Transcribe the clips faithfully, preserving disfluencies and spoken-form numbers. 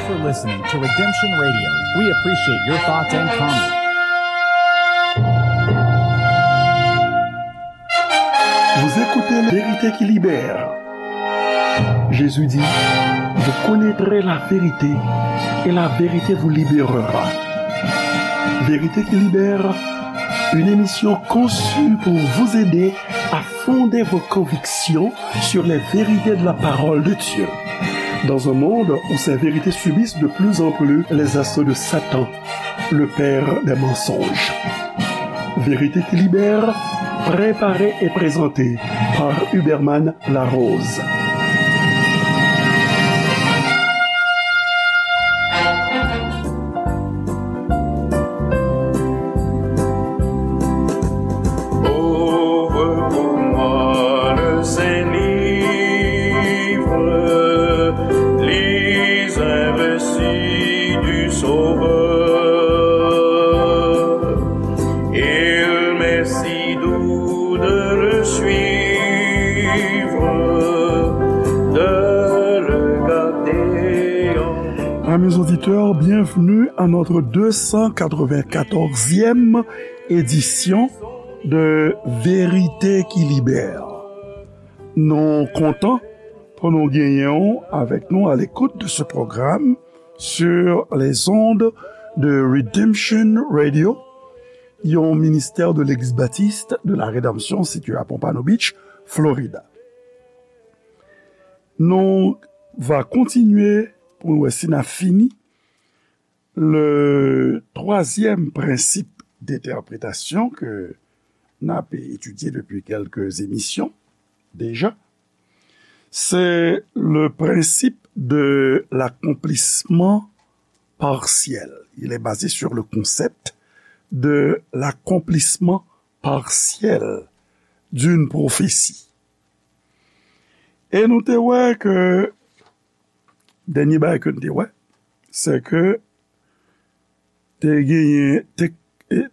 for listening to Redemption Radio. We appreciate your thoughts and comments. Vous écoutez Vérité qui libère. Jésus dit, vous connaîtrez la vérité et la vérité vous libérera. Vérité qui libère, une émission conçue pour vous aider à fonder vos convictions sur les vérités de la parole de Dieu. Dans un monde où ces vérités subissent de plus en plus les assauts de Satan, le père des mensonges. Vérité qui libère, préparée et présentée par Huberman Larose. Ouvre pour moi le saint livre, lis un récit du Sauveur. Il m'est si doux de le suivre, de le garder en Amis auditeurs, bienvenue à notre deux cent quatre-vingt-quatorzième édition de Vérité qui Libère. Nou kontan pou nou genyen w avèk nou à l'écoute de ce programme sur les ondes de Redemption Radio, yon ministè de Legliz Batis de la Redanmsyon sitiye à Pompano Beach, Florida. Nou va kontinye pou nou wè si n a fini le twazyèm prensip d'entèpretasyon ke n ap etidye depi kèlke emisyon deja. C'est le principe de l'accomplissement partiel. Il est basé sur le concept de l'accomplissement partiel d'une prophétie. E nou te wè ke, dènye bagay ke nou te wè, se ke te genyen, te,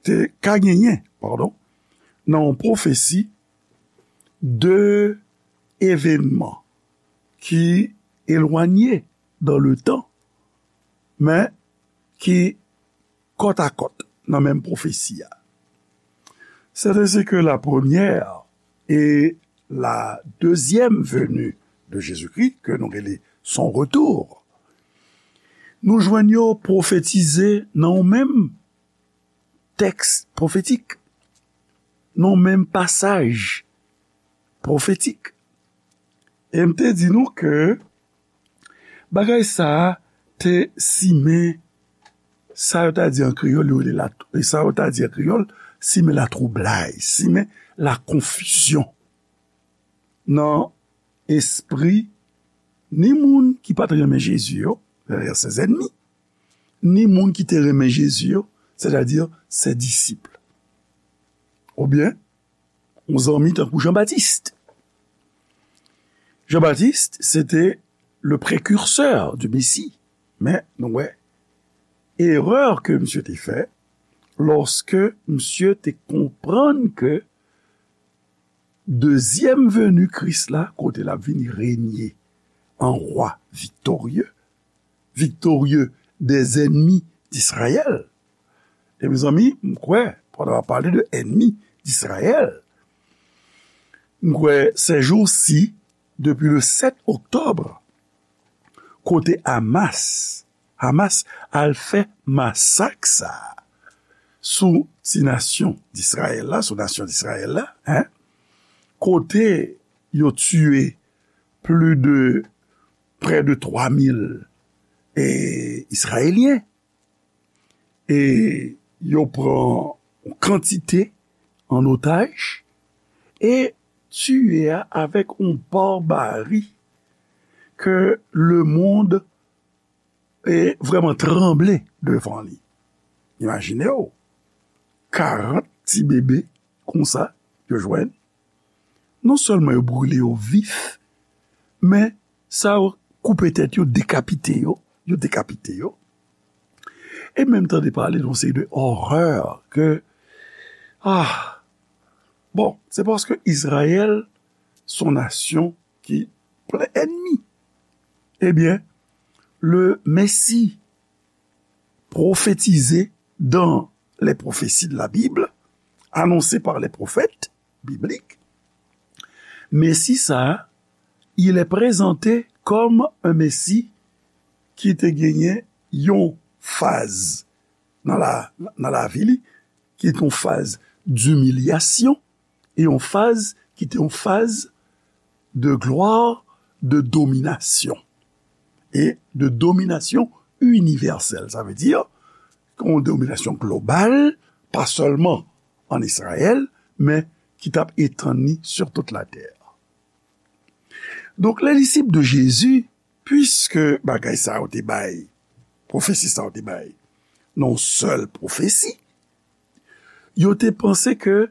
te ka genyen, padon, nan yon pwofesi de evènman ki elwanye dans le temps, men ki kòtakòt nan menm pwofesi a. C'est ainsi que la première et la deuxième venue de Jésus-Christ, ke nou rele son retour, nou jwenn yo pwofetize nan yon menm tèks pwofetik, nan yon menm pasaj pwofetik. E m te di nou ke bagay sa a te simen sa yo ta di an kreyòl, yo rele la, e sa yo ta di an kreyòl, simen latwoublay, simen lakonfizyon nan espri ni moun ki pa t renmen Jezi yo, c'est-à-dire ses ennemis, ni moun ki te renmen Jezi yo, c'est-à-dire ses disciples. Oubyen, yon zanmi tankou Jan Batis. Jan Batis, se te le prekirsè du Mesi. Men, nou wè, erè ke misye te fè, lòske misye te konprann ke dezyèm veni Kris la, kote l ap vini renye an wa viktorye, viktorye des ennemis d'Israël. E mezanmi, m kwè, pandan w ap pale de ennemis d'Israël, m kwè, ces jours-ci, depuis le sept octobre, kote Hamas, Hamas al fè masak sa a sou ti nasyon d'Israël la, sou nasyon d'Israël la, en, kote yo tiye plis de, près de twa mil, e, Izrayelyen. E yo pran yon kantite an otaj e tiye a avèk yon barbari ke lemonn e vrèman tranble devan li. Imajine w, karant ti bebe konsa yo jwenn. Non sèlman yo brile yo vif, men sa yo koupe tèt yo, dekapite yo, yo dekapite yo. E menm tande pale de yon seri de orè ke, ah, bon, se paske Izrayèl se yon nasyon ki plen ènmi. Ebyen, le Messie prophétisé dans les prophéties de la Bible, annoncé par les prophètes bibliques, Mesi sa a, il est présenté comme un Messie ki te genyen yon faz nan la, nan lavi li, ki te yon faz dimilyasyon, e yon faz ki te yon faz de glwa, de dominasyon, e de dominasyon inivèsèl. Sa vle di, yon dominasyon global, pa sèlman an Izrayèl, men ki t ap etann li sur toute la terre. Donk, les disciples de Jésus, puiske bagay sa yo te bay, pwofesi sa yo te bay, nan yon sèl pwofesi, yo te panse ke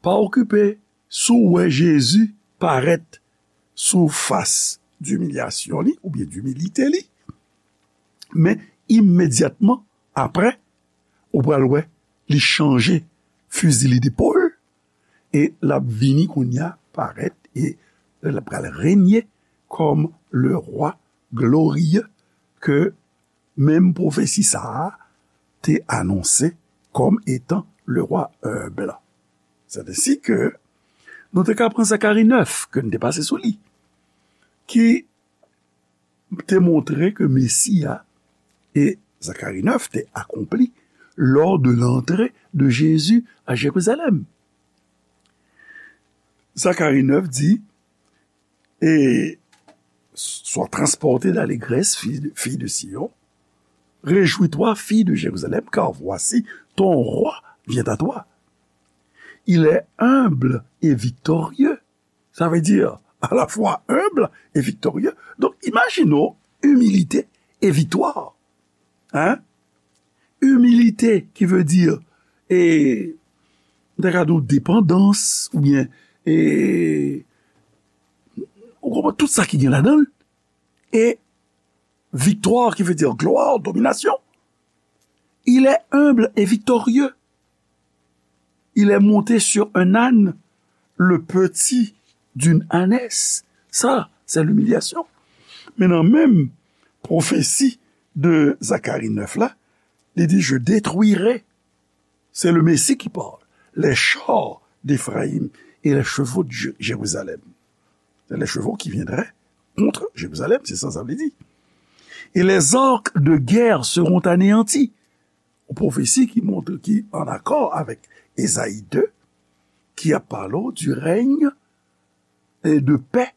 pa okipe si w wè Jezi parèt sou fas dimilyasyon li, oubyen dimilite li, men imedyatman apre, ou pral wè li chanje fizi li depòl, e l ap vini kounye a parèt, e l ap pral renye kòm le rwa gloriye ke menm pwofesi sa a te anonse kòm etan le rwa enb. C'est ainsi que nou te ka pran Zakari nèf, ke n te pase sou li, ki te montre ke Mesi a, e Zakari nèf te akonpli lors de l'entrée de Jésus à Jérusalem. Zakari nèf di, et sois transporté d'allégresse, fille de, fille de Sion, réjouis-toi, fille de Jérusalem, car voici, ton roi vient à toi. Il est humble et victorieux. Ça veut dire à la fois humble et victorieux. Donk, imajine w, imilite e viktwa. Hein? Imilite ki vle di, e, m ta ka di w depandans, oubyen, e, ou konprann tout sa ki gen ladan l. E viktwa ki vle di glwa, dominasyon. Il est humble et victorieux. Il est monté sur un âne, le petit d'une ânesse. Ça, c'est l'humiliation. Men nan menm pwofesi de Zakari nèf la, li di, je détruirai, c'est le Messie qui parle, les chars d'Éphraïm et les chevaux de Jé-, Jérusalem. C'est les chevaux qui viendraient contre Jérusalem, c'est ça, ça veut dire. Et les arcs de guerre seront anéantis. Yon pwofesi ki montre ki an akò avèk Ezayi de, ki ap pale w du règne et de paix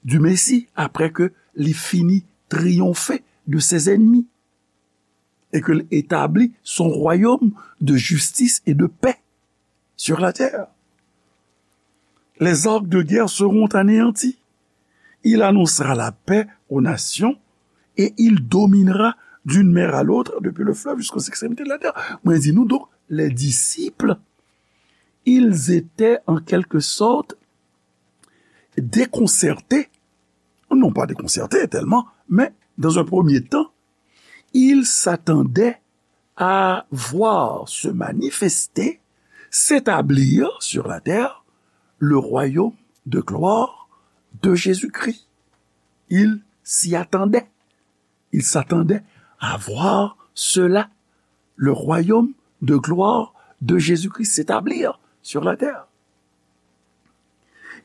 du Messie, après que li fini triyonfe de ses ennemis et que l établit son royaume de justice et de paix sur la terre. Les arcs de guerre seront anéantis. Il annoncera la paix aux nations et il dominera d'une mer à l'autre, depuis le fleuve jusqu'aux extrémités de la terre. Mwen di nou, donk, les disciples, ils étaient en quelque sorte déconcertés, non pas déconcertés tellement, mais dans un premier temps, ils s'attendaient à voir se manifester, s'établir sur la terre, le royaume de gloire de Jésus-Christ. Ils s'y attendaient. Ils s'attendaient à voir cela, le royaume de gloire de Jésus-Christ s'établir sur la terre.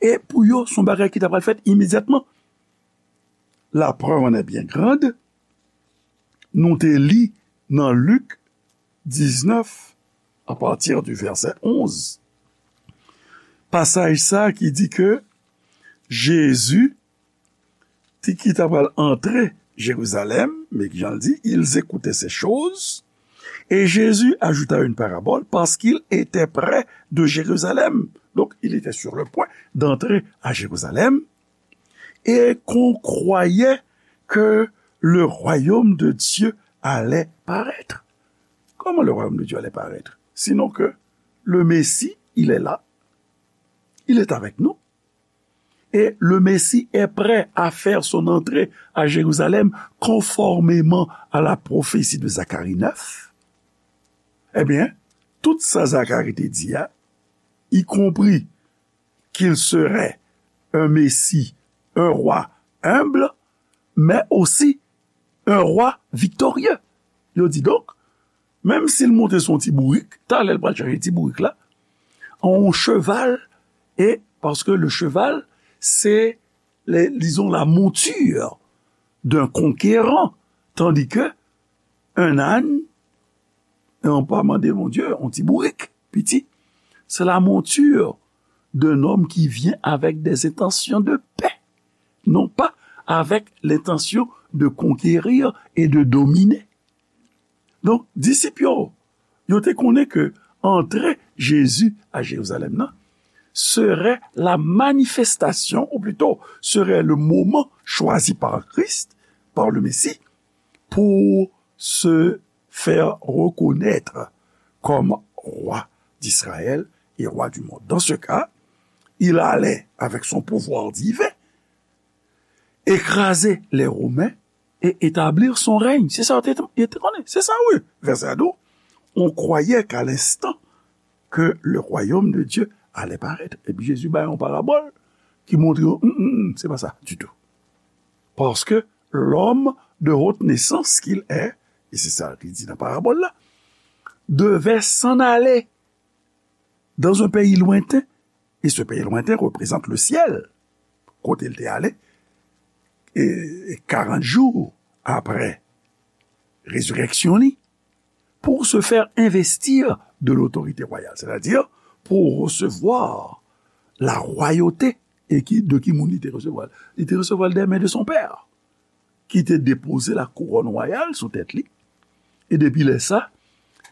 E pou yo, se yon bagay ki ta pral fèt imedyatman. La preuve en est bien grande. Nou te li nan Lik diznèf, à partir du verset onze. Pasaj sa ki di ke Jezi, ti ki ta pral antre Jerizalèm, men ki jan l di, ils écoutaient ces choses, et Jésus ajouta une parabole parce qu'il était près de Jérusalem. Donc, il était sur le point d'entrer à Jérusalem. Et qu'on croyait que le royaume de Dieu allait paraître. Comment le royaume de Dieu allait paraître? Sinon que le Messie, il est là, il est avec nous, et le Messie est prêt à faire son entrée à Jérusalem conformément à la prophétie de Zacharie neuf. Eh bien, tout sa Zacharie te di a, y compris qu'il serait un Messie, un roi humble, mais aussi un roi victorieux. Yo di donk, menm si l monte sou yon ti bourik, talè l pral chache ti bourik la, yon cheval, e paske le cheval, se, le, disons, la monture d'un conquérant, tandis que un âne, e on pa mande Bondye, yon ti bourik, piti, c'est la monture d'un homme qui vient avec des intentions de paix, non pas avec l'intention de conquérir et de dominer. Donk, disip yo, yo te konnen ke antre Jezi a Jerizalèm nan serait la manifestation, ou plutôt, serait le moment choisi par Christ, par le Messie, pour se faire reconnaître comme roi d'Israël et roi du monde. Dans ce cas, il allait, avec son pouvoir divin, écraser les Romains et établir son règne. Se sa yo te, yo te konnen. Se sa, wi. Vèsè a di w, on croyait qu'à l'instant que le royaume de Dieu allait paraître. Epi Jezi bay yon parabòl ki montre yo, mm, mm, mm, se pa sa ditou. Parce que l'homme de haute naissance qu'il est, et c'est ça qu'il dit dans la parabole là, devait s'en aller dans un pays lointain, et ce pays lointain représente le ciel, kote l te ale, e, e karant jou apre rezirèksyon li, pour se faire investir de l'autorité royale, c'est-à-dire pour recevoir la royauté. E ki, de ki moun li te resevwa l? Li te resevwa l des mains de son père, ki te depoze la couronne royale sou tèt li. E depi lè sa,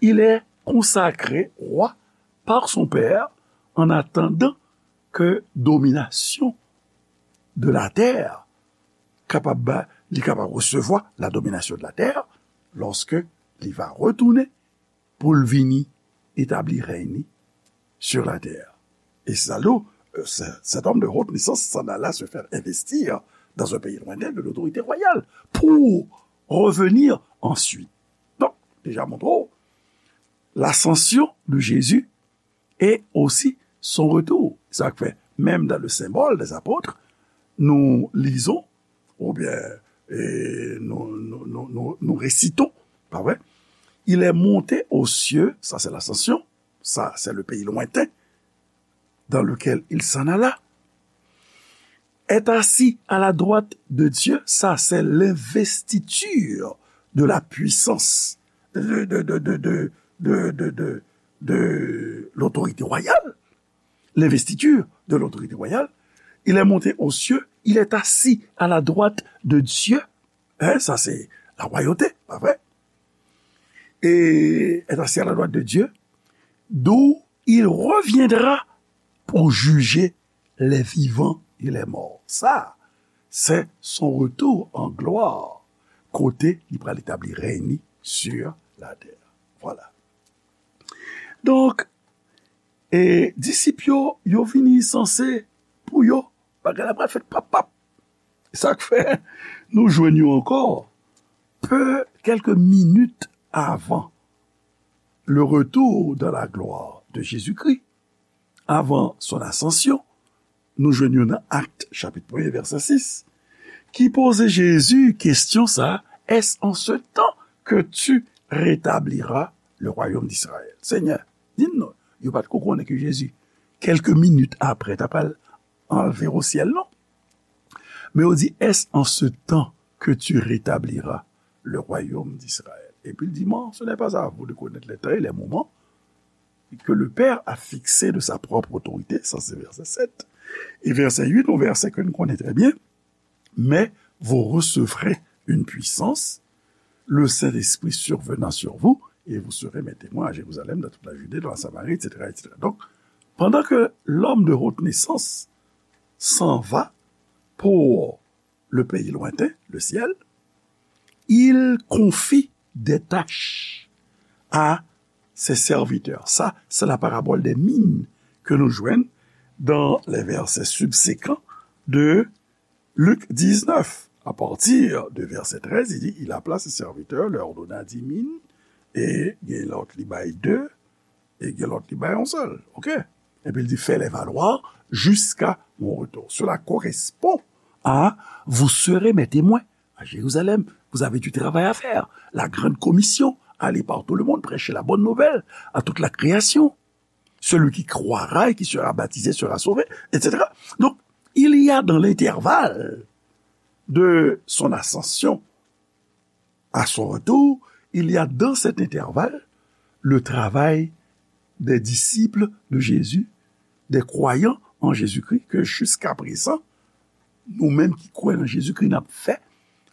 il est consacré roi par son père en attendant que domination de la terre kapab ba, li kapab resevwa la domination de la terre lorsque li va retourner pour l vini établir règne sur la terre. Et c'est là, euh, ce- cet homme de haute naissance s'en alla se faire investir dans un pays lointain de l'autorité royale pour revenir ensuite. Donk, deja montre w, l'ascension de Jésus et aussi son retour. Sa k fè, même dans le symbole des apôtres, nous lisons, ou bien, et nous, nous, nous, nous, nous récitons, pas vrai? Il est monté aux cieux, ça c'est l'ascension, ça c'est le pays lointain dans lequel il s'en alla, est assis à la droite de Dieu, ça c'est l'investiture de la puissance, de, de, de, de, de, de, de, de, de l'autorité royale, l'investiture de l'autorité royale. Il est monté aux cieux, il est assis à la droite de Dieu. Hein, ça c'est la royauté, pas vrai? Et est assis à la droite de Dieu, d'où il reviendra pour juger les vivants et les morts. Ça, c'est son retour en gloire, kote li pral établir règne sur la terre. Voilà. Donk, e disip yo, yo vini sanse pou yo, bagay la pral fèt pap pap. Sa k fè nou jwenn yo ankò pe, quelques minutes avant le retour dans la gloire de Jésus-Christ, avant son ascension, nou jwenn yo nan Actes chapitre premier verset six, ki poze Jezi kesyon sa, est-ce en ce temps que tu rétabliras le royaume d'Israël? Senyè, di n non, yo pa t ko konnen ke Jezi, quelques minutes après, ta pral anlve o syèl non. Men yo di, est-ce en ce temps que tu rétabliras le royaume d'Israël? Epi l di, non, ce n'est pas à vous de connaître les temps et les moments que le Père a fixés de sa propre autorité, ça c'est verset sept. Et verset huit, un verset que nous connaissons très bien, mais vous recevrez une puissance, le Saint-Esprit survenant sur vous, et vous serez mes témoins à Jérusalem, dans toute la Judée, dans la Samarie, et cetera, et cetera. Donc, pendant que l'homme de haute naissance s'en va pour le pays lointain, le ciel, il confie des tâches à ses serviteurs. Ça, c'est la parabole des mines que nous jouons dans les versets subséquents de Luc dix-neuf. À partir de verset treize, il dit, il appela ses serviteurs, leur donna dix mines, et il y a l'autre, il baille deux, e gen lòt li bay yon sèl. Oke? Epi l di, fais-les valoir jusqu'à mon retour. Cela correspond à, vous serez mes témoins à Jérusalem, Vous avez du travail à faire. La grande commission, allez par tout le monde, prêchez la bonne nouvelle à toute la création. Celui qui croira et qui sera baptisé sera sauvé, et cetera. Donc, il y a dans l'intervalle de son ascension à son retour, il y a dans cet intervalle le travail des disciples de Jésus, des croyants en Jésus-Christ, que jusqu'à présent, nou menm ki kwè nan Jezikri, n ap fè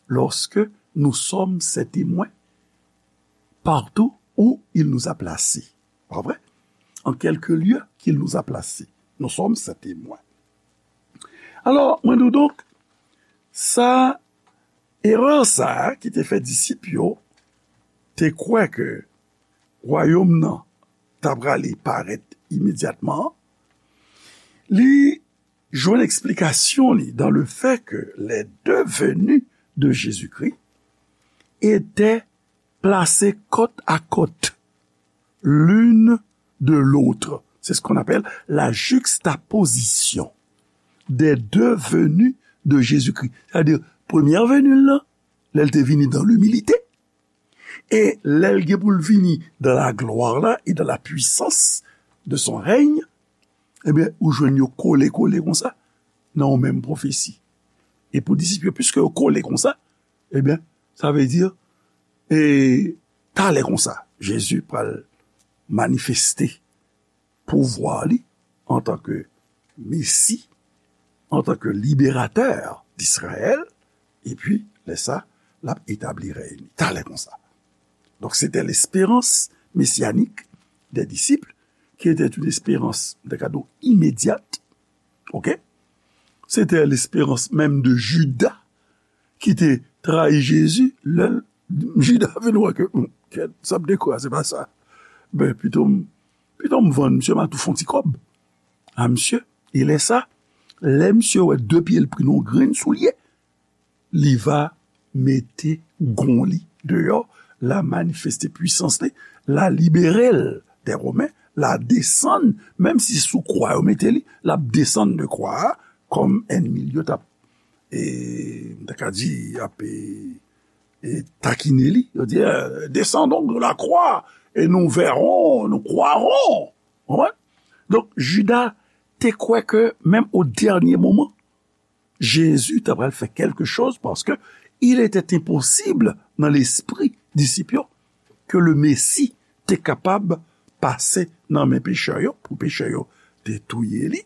lorsque nous sommes ses témoins partout où il nous a placés. Pa vre? En quelque lieu qu'il nous a placés, nous sommes ses témoins. Alò, mwen di w donk, sa, erè sa a ki te fè disip yo te kwè ke wayòm nan ta prale parèt imedyatman, li jwenn eksplikasyon li dans le fait que les deux venues de Jésus-Christ étaient placées côte à côte l'une de l'autre. C'est ce qu'on appelle la juxtaposition des deux venues de Jésus-Christ. Sètadi, premyè veni l lan, lè l te vini dans l'humilité, e lè l gen pou l vini dans la gloire là et dans la puissance de son règne, ebyen, ou jwenn yo kole kole konsa nan yon menm pwofesi. E pou disip yo, piske yo kole konsa, ebyen, sa vle di, e talè konsa, Jezi pral manifeste pouvwa li antanke Mesi, antanke liberatè d'Israël, epi lè sa, l ap etabli rèy li. Talè konsa. Donc, c'était l'espérance messianique des disciples, qui était une espérance, de cadeau, immédiate. OK? C'était l'espérance même de Judas, ki te trayi Jezi, lè l, Jida vin wè ke, hmm, kèt, sa m te kwè a, se pa sa. Ben, pito m, pito m vann misye, m a tou fè yon ti kòb a misye. E lè sa, lè misye wè de pye l pri nan yon grenn soulye, li va mete gon li deyò, l a manifeste pwisans li, l a libere l dè Women, l a desann, menm si sou kwa yo mete li, l ap desann de kwa a, kòm ènmi l yo t ap, e, m ta ka di, ap, e, e, takine li. Yo di, eh, descendons de la croix et nous verrons, nous croirons. Konprann? Donk, Jida te kwè ke, menm o dènye moman, Jezi ta pral fè kèlke choz, paske il était impossible nan lespri disip yo ke le Mesi te kapab pase nan men pechè yo, pou pechè yo te touye li,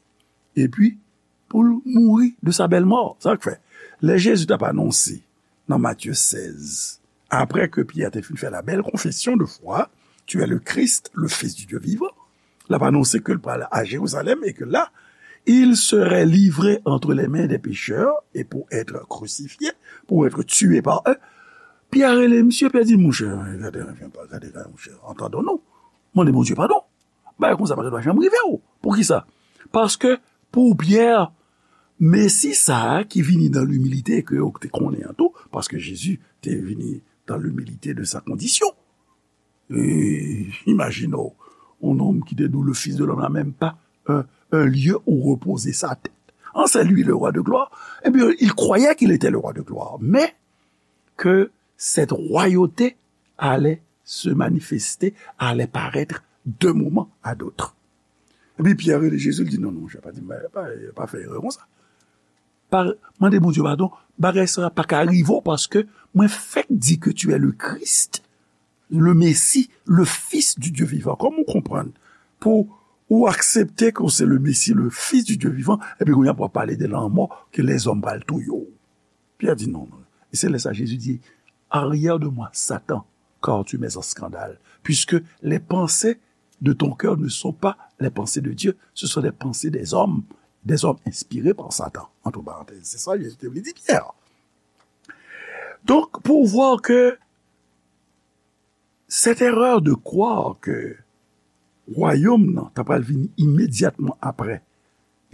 epi pou l mouri de sa bèl mò. Sa k fè, lè Jezi t ap anonse nan Matye sèz, apre ke Pyè te fin fè la bèl konfesyon de fwa, Tu es le Christ, le Fils du Dieu vivant, l ap anonse ke l pral a Jerizalèm e ke la, il serait livré entre les mains des pécheurs et pour être crucifié, pour être tué par eux. Pyè rele misye, Pyè di, monchè, gade, gade, gade, monchè, entendons-nous. Mande Bondye padon. Bagay konsa pa ta dwa janm rive w. Poukisa? Paske pou Pyè, Mesi sa a ki vini dans l'humilité ke yo te konnen an tou, paske Jezi te vini dans l'humilité de sa condition. E imajine w, yon nonm ki te di w, le Fils de l'homme n'a même pas un, un lieu où reposer sa tête. Hein, c'est lui le roi de gloire. Eh bien, il croyait qu'il était le roi de gloire, mais que cette royauté allait se manifester, allait paraître d'un moment à d'autre. Epi Pyè rele Jezi, l di, non, non, monchè, pa di, pa, pa, pa fè erè konsa. Pa, mande Bondye padon, bagay sa pa ka rive w, paske mwen fèk di ke tu es le Christ, le Messie, le Fils du Dieu vivant. Kòman w konprann? Pou ou aksepte ke w se le Messie, le Fils du Dieu vivant, epi kounye a pou w ap pale de lanmò ke lèzòm pral touye w. Pyè di, non, non. E se lè sa Jezi di, arrière de moi, Satan, car tu mets en scandale, puisque les pensées de ton cœur ne sont pas les pensées de Dieu, ce sont les pensées des hommes, des hommes inspirés par Satan, entre parenthèses. Se sa Jezi te vle di Pyè. Donk, pou w wè ke cette erreur de croire que wayòm nan ta pral vini imedyatman apre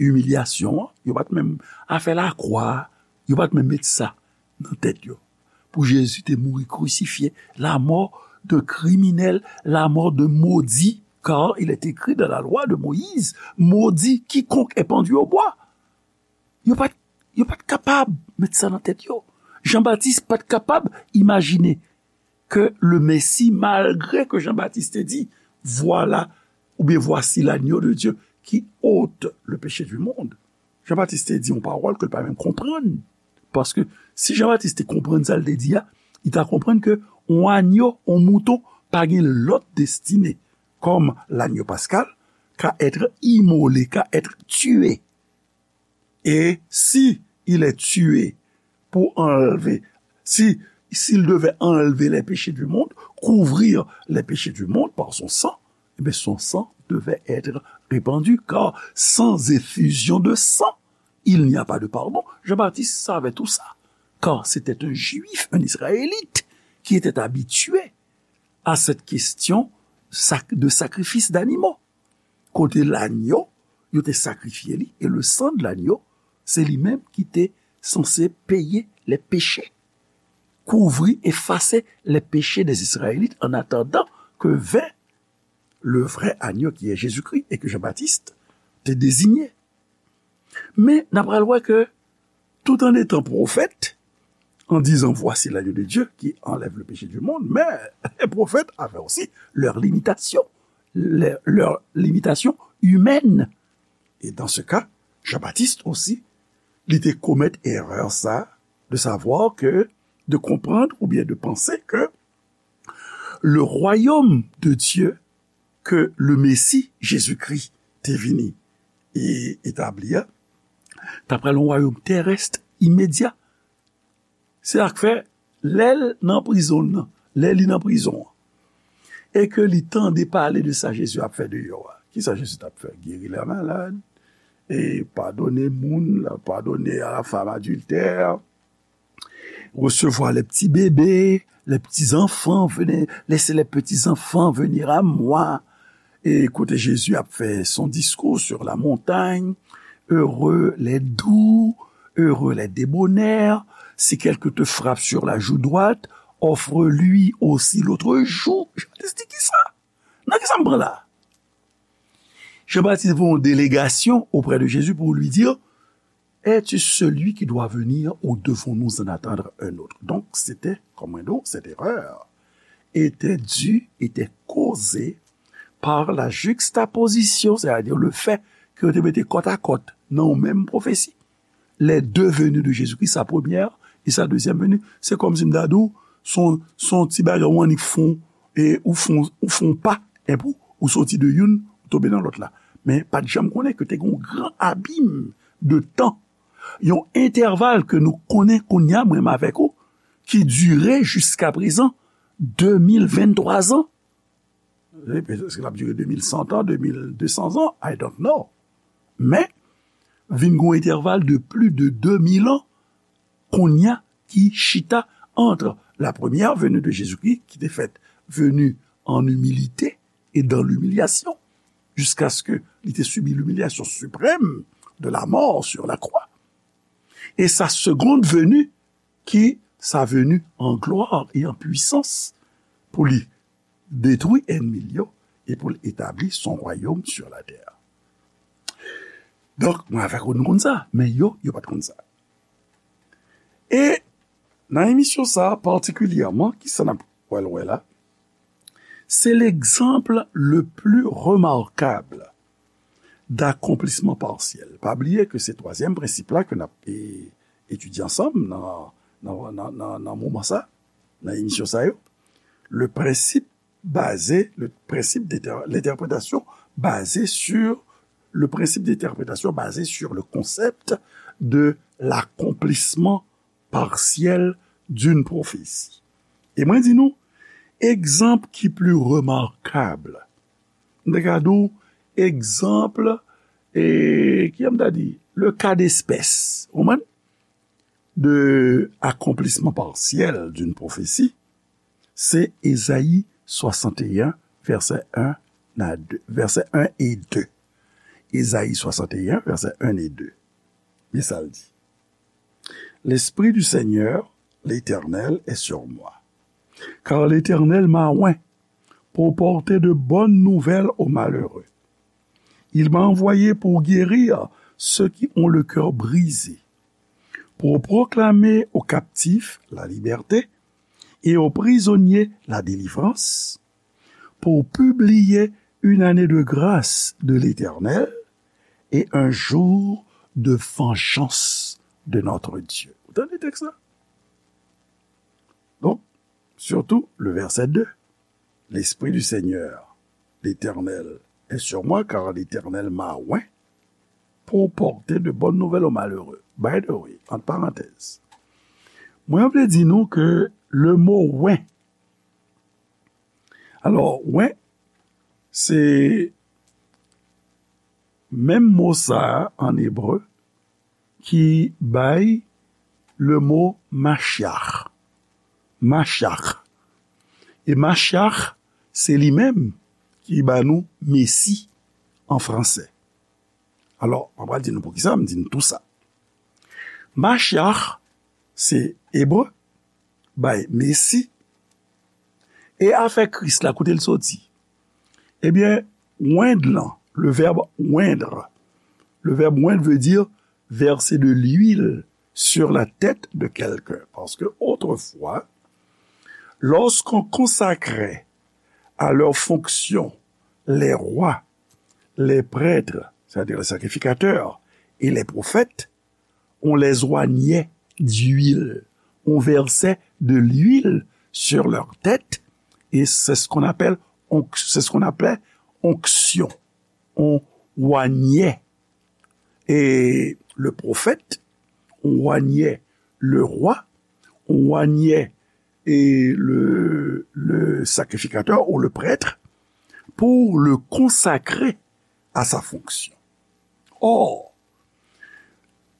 imilyasyon an, yo pa t menm, afè lakwa a, yo pa t menm met sa nan tèt yo. Pou Jezi te mouri krisifye, la mort d'un criminel, la mort d'un maudit, car il est écrit dans la loi de Moïse, maudit quiconque est pendu au bois. Yo pa t, yo pa t kapab met sa nan tèt yo. Jan Batis pa t kapab imajine ke le Messie, malgre ke Jan Batis te di, Voilà, oubyen Voici l'agneau de Dieu qui ôte le péché du monde. Jan Batis te di yon pawòl ke l pa menm konprann. Paske si Jan Batis te konprann sa l te di a, li ta konprann ke yon anyo, yon mouton, pa gen lòt destine. Comme l'agneau pascal, qu'à être immolé, qu'à être tué. Et si il est tué pour enlever, si, s'il devait enlever les péchés du monde, couvrir les péchés du monde par son sang, eh bien, son sang devait être répandu, car sans effusion de sang, il n'y a pas de pardon. Jean-Baptiste savait tout ça, car c'était un Juif, un Israélite, qui était habitué à cette question sac- de sacrifice d'animaux. Kote lanyo, yo te sakrifye li, e le sang de l'agneau, se li menm ki te sanse peye les péchés, couvrir, effacer les péchés des Israélites en attendant que vint le vrai agneau qui est Jésus-Christ et que Jean-Baptiste te désignait. Men, n ap pral wè ke tout en étant prophète, en disant, Voici l'agneau de Dieu qui enlève le péché du monde, mais les prophètes avaient aussi leurs limitations, leurs, leurs limitations humaines. Et dans ce cas, Jean-Baptiste aussi, li te komèt erè sa, de savoir que, de comprendre ou bien de penser que le royaume de Dieu ke le Mesi, Jezikri, te vini e etabli a, t ap pral yon wayòm terès imedya. Se sa k fè, lè l nan prizon nan, lè li nan prizon an, e ke li tande pale de sa Jezi ap fè deyò a, kisa Jezi t ap fè? Geri lè malad, e padone moun, padone a la femme adultère, recevoir les petits bébés, les petits enfants, venez, laissez les petits enfants venir à moi. E kote Jezi ap fè son discours sur la montagne, heureux les doux, heureux les débonnaires, si quelqu'un te frappe sur la joue droite, offre-lui aussi l'autre joue. Jan Baptiste di kisa? Nan kisa m pran la? Jean-Baptiste voit une délégation auprès de Jésus pour lui dire, Es-tu celui qui doit venir ou devons-nous en attendre un autre? Donk, se te, kòm mwen di w, cette erreur était due, était causée par la juxtaposition, c'est-à-dire le fait ke yo te mete kòt a kòt nan yon menm pwofesi. Les deux venues de Jésus-Christ, sa premyè e sa dezyèm veni. Se kòmsi m ta di w, se yon, se yon ti bagay ou annik fon, e ou fon, ou fon pa, enpi ou soti de youn, ou tonbe nan lòt la. Men pa t janm konnen ke te gen yon gran abim de tan, yon entèval ke nou konnen kounye a, mwen menm avèk ou, ki dire jiska prezan de mil venntwa zan. Wi, petèt ke l ap dire de mil san an, de mil de san an, I don't know. Men, vin gen yon entèval de plis de de mil an, kounye a, ki chita entre la première venue de Jésus-Christ, ki te fèt venu en humilité et dans l'humiliation, jusqu'à ce que li te sibi l'humiliation suprême de la mort sur la croix, et sa seconde venue, ki sa venu en gloire et en puissance, pou li detwi ènmi l yo e pou l etabli son royaume sur la terre. Donk, mwen avèk ou, nou konn sa, men yo, yo pa t konn sa. E nan emisyon sa a patikilyèman, kisa n ap pral wè la? C'est l'exemple le plus remarquable d'accomplissement partiel. Pa bliye ke se twazyèm prensip la ke n ap, e, etidye ansanm nan, nan, nan, nan, nan moman sa, nan emisyon sa yo. Le principe basé, le principe d'inter-, l'interprétation basée sur, le principe d'interprétation basé sur le concept de l'accomplissement partiel d'une prophétie. E mwen di nou, egzanp ki pli remakab, m te ka di w, egzanp, e, ki jan m ta di, le cas d'espèce, ou konprann? De accomplissement partiel d'une prophétie, se Ezayi swasanteyen, vèsè en a de, vèsè en e de. Ezayi swasanteyen, vèsè en e de. Men sa l di. L'Esprit du Seigneur, l'Éternel, est sur moi. Car l'Éternel m'a oint pour porter de bonnes nouvelles aux malheureux. Il m'a envoyé pour guérir ceux qui ont le cœur brisé, pour proclamer aux captifs la liberté et aux prisonniers la délivrance, pour publier une année de grâce de l'Éternel et un jour de vengeance de notre Dieu. Ou tande tèks la? Donk, surtout le verset deux. L'Esprit du Seigneur, l'Éternel, est sur moi, car l'Éternel m'a oint pour porter de bonnes nouvelles aux malheureux. By the way, entre parenthèses, mwen vle di nou ke le mo oint, alò, oint, se menm mo sa a an ebre ki bay le mo Mashiach. Mashiach. E Mashiach, se li menm ki ba nou Mesi an fransè. Alò, mwen pral di nou poukisa m di nou tou sa. Mashiach, se ebre, bay Mesi. E afè Kris la, kote l soti? Ebyen, oindre lan, le verbe oindre. Le verbe oindre veut dire verser de l'huile sur la tête de quelqu'un. Parce que autrefois, lorsqu'on consacrait à leurs fonctions les rois, les prêtres, c'est-à-dire les sacrificateurs, et les prophètes, on les oignait d'huile. On versait de l'huile sur leur tête et c'est ce qu'on appelle onc-, c'est ce qu'on appelait onction. On oignait et le prophète, on oignait le roi, on oignait et le, le sacrificateur ou le prêtre pour le consacrer à sa fonction. Or,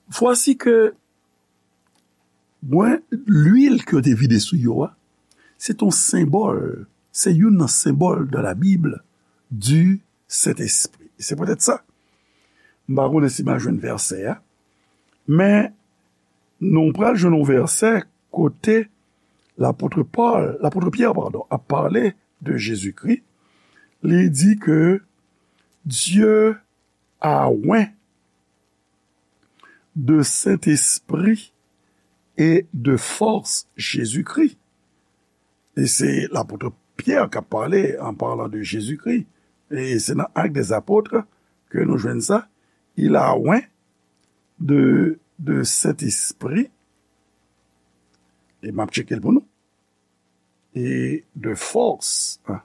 voici que mwen, lwil ke yo te vide sou yo a, se yon senbòl, se youn nan senbòl dans la Bible du Saint-Esprit. Se poutèt sa, m pa konnen si m a jwenn vèsè a, men nou pral jwenn yon vèsè kote lapot Pòl, lapot Pyè, padon, ap pale de Jezikri. Li di ke Dieu a oint de Saint-Esprit et de force Jésus-Christ. E se lapot Pyè k ap pale an palan de Jezikri. E se nan Actes des Apôtres ke nou jwenn sa. Il a oint de, de Saint-Esprit. E m ap tcheke l pou nou. Et de force. Ah,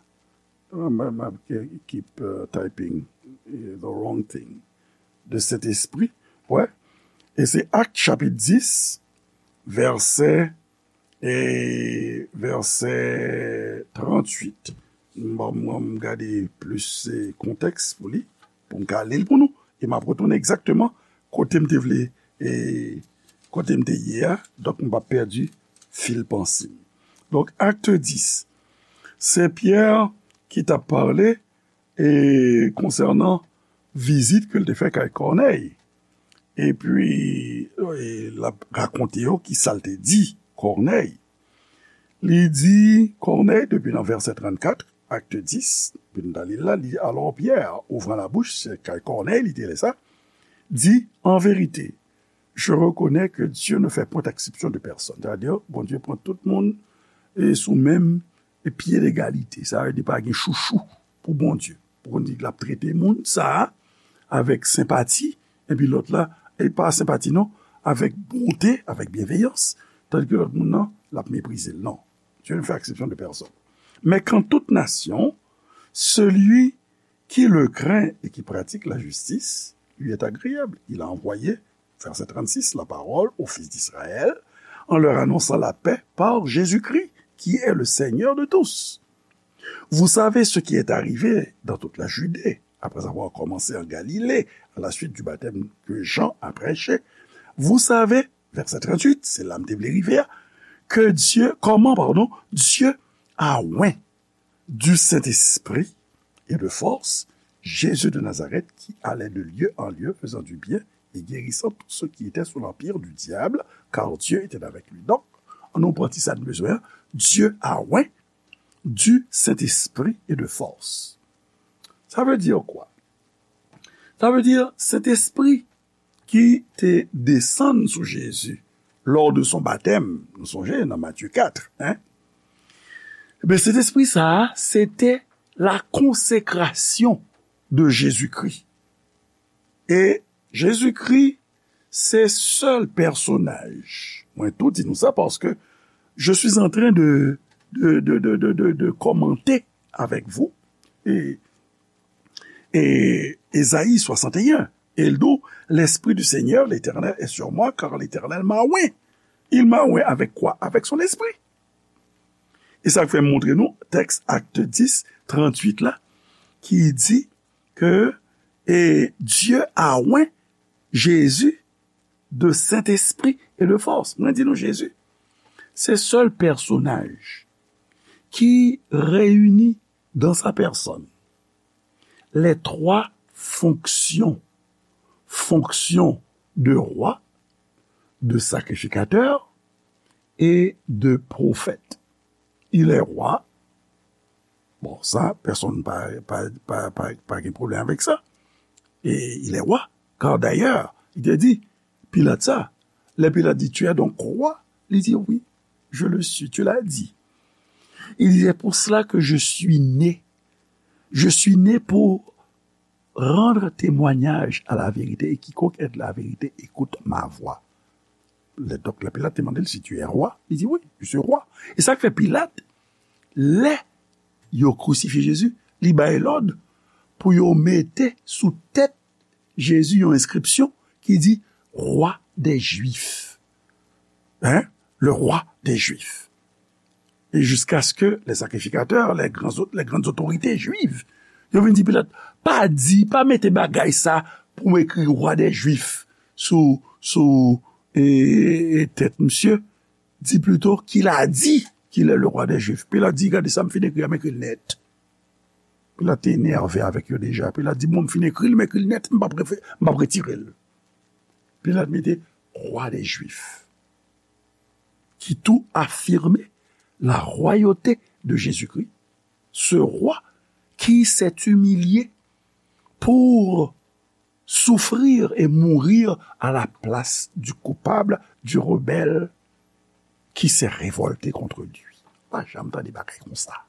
m, m, m, keep, uh, typing, uh, the wrong thing. De Saint-Esprit. Ouais. E se Actes chapitre dix, verset, e verset trente-huit. M, m, m gade plis, eh, kontèks pou li, pou m ka li l pou nou. E m ap retounen egzakteman kote m te vle, e kote m te ye a. Donk, m pa pèdi fil panse m. Donk, Actes dix, se Pyè ki t ap pale, e konsènan vizit ke l te fè kay Kònèy. Epi, e, l ap rakonte yo ki sa l te di Kònèy. Li di Kònèy, depi nan vèsè trannkat, Actes dix, depi nou ta li l la, li, alors Pierre, ouvrant la bouche, se kay Kònèy li te rele sa, dit, en vérité, je reconnais que Dieu ne fait point exception de personne. Sètadi, Bondye pran tout moun e sou menm e pye legalite. Sa vle di pa gen chouchou pou Bondye. Pou Bondye di l ap trete moun sa a avèk senpati, epi lòt la, e pa senpati non, avèk bonte, avèk byenveyans, tandis ke lòt moun nan, l ap meprize l. Non. Dieu ne fait exception de personne. Mais qu'en toute nation, celui qui le craint et qui pratique la justice lui est agréable. Il a envoyé, verset trente-six, la parole aux fils d'Israël en leur annonçant la paix par Jésus-Christ, qui est le Seigneur de tous. Vous savez ce qui est arrivé dans toute la Judée, après avoir commencé en Galilée, à la suite du baptême que Jean a prêché. Vous savez, verset trente-huit, se la m te vle rive a, que Dieu, comment, pardon, Dieu a oint du Saint-Esprit et de force, Jésus de Nazareth, qui allait de lieu en lieu, faisant du bien et guérissant tous ceux qui étaient sous l'empire du diable, car Dieu était avec lui. Donk, ann nou pran ti sa n bezwen an, Dieu a oint du Saint-Esprit et de force. Sa vle di kwa? Sa vle di, Sentespri ki te desann sou Jezi lors de son baptême. Nou sonje nan Matye kat, hein? Ebyen, Sentespri sa a, se te la consécration de Jésus-Christ. E Jezikri se sèl pèsonaj. Mwen tou di nou sa paske je suis en train de, de, de, de, de, de, de commenter avec vous. E, e Ezayi swasannteyen, e l di w, L'Esprit du Seigneur, l'Éternel, est sur moi, car l'Éternel m'a oint. Il m'a oint avec quoi? Avec son esprit. E sa k fè m montre nou tèks Acte dix, tranntuit la, ki di ke, e, Dieu a oint Jésus de Saint-Esprit et de force. Mwen di nou, Jezi se sèl pèsonaj ki reyini dans sa personne les trois fonctions, fonction de roi, de sacrificateur et de prophète. Il est roi. Bon, sa, pèsonn pa, pa, pa, pa, pa gen pwoblèm avèk sa. E il est roi. Car d'ailleurs, il te dit, Pilat sa, lè Pilat di, Tu es donc roi? Li di, Oui, je le suis, tu l'as dit. Il dit, C'est pour cela que je suis né. Je suis né pour rendre témoignage à la vérité, et quiconque aime la vérité écoute ma voix. Lè, donk, lè Pilat te mande l, Si tu es roi? Li di, Oui, je suis roi. E sa k fè Pilat, lè yo krisifye Jezi, li bay lòd pou yo mete sou tèt Jezi yon enskripsyon ki di, Roi des Juifs. Hein? Le roi des Juifs. E jiskaske lè sakrifikatè, lè gran, lè grann otorite jwiv, yo vin di Pilat, pa di, pa mete bagay sa pou m ekri Roi des Juifs sou, sou, e, e, tèt misye. Di plito, Qu'il a dit qu'il est le roi des Juifs. Pilat di, Gade sa m fin ekri a, m ekri l nèt. Pilat te enève avèk yo deja. Pilat di, Bon, m fin ekri l, m ekri l nèt, m p ap refe-, m p ap retire l. Pilat mete Roi des Juifs, qui tout affirmait la royauté de Jésus-Christ, ce roi qui s'est humilié pour souffrir et mourir à la place du coupable, du rebelle qui s'est révolté contre lui. Pa janm tande bagay konsa.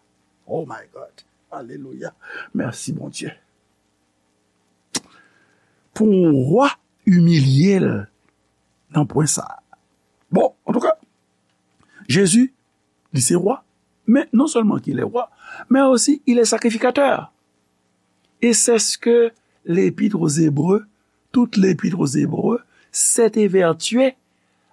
Oh my God. Alelouya. Mèsi, Bondye. Pou yon wa imilye l nan pwen sa a. Bon, antouka, Jezi, li se wa, men non sèlman ki lè wa, men osi il est sacrificateur. Et c'est ce que l'Épître aux Hébreux, toute l'Épître aux Hébreux, s'est évertuée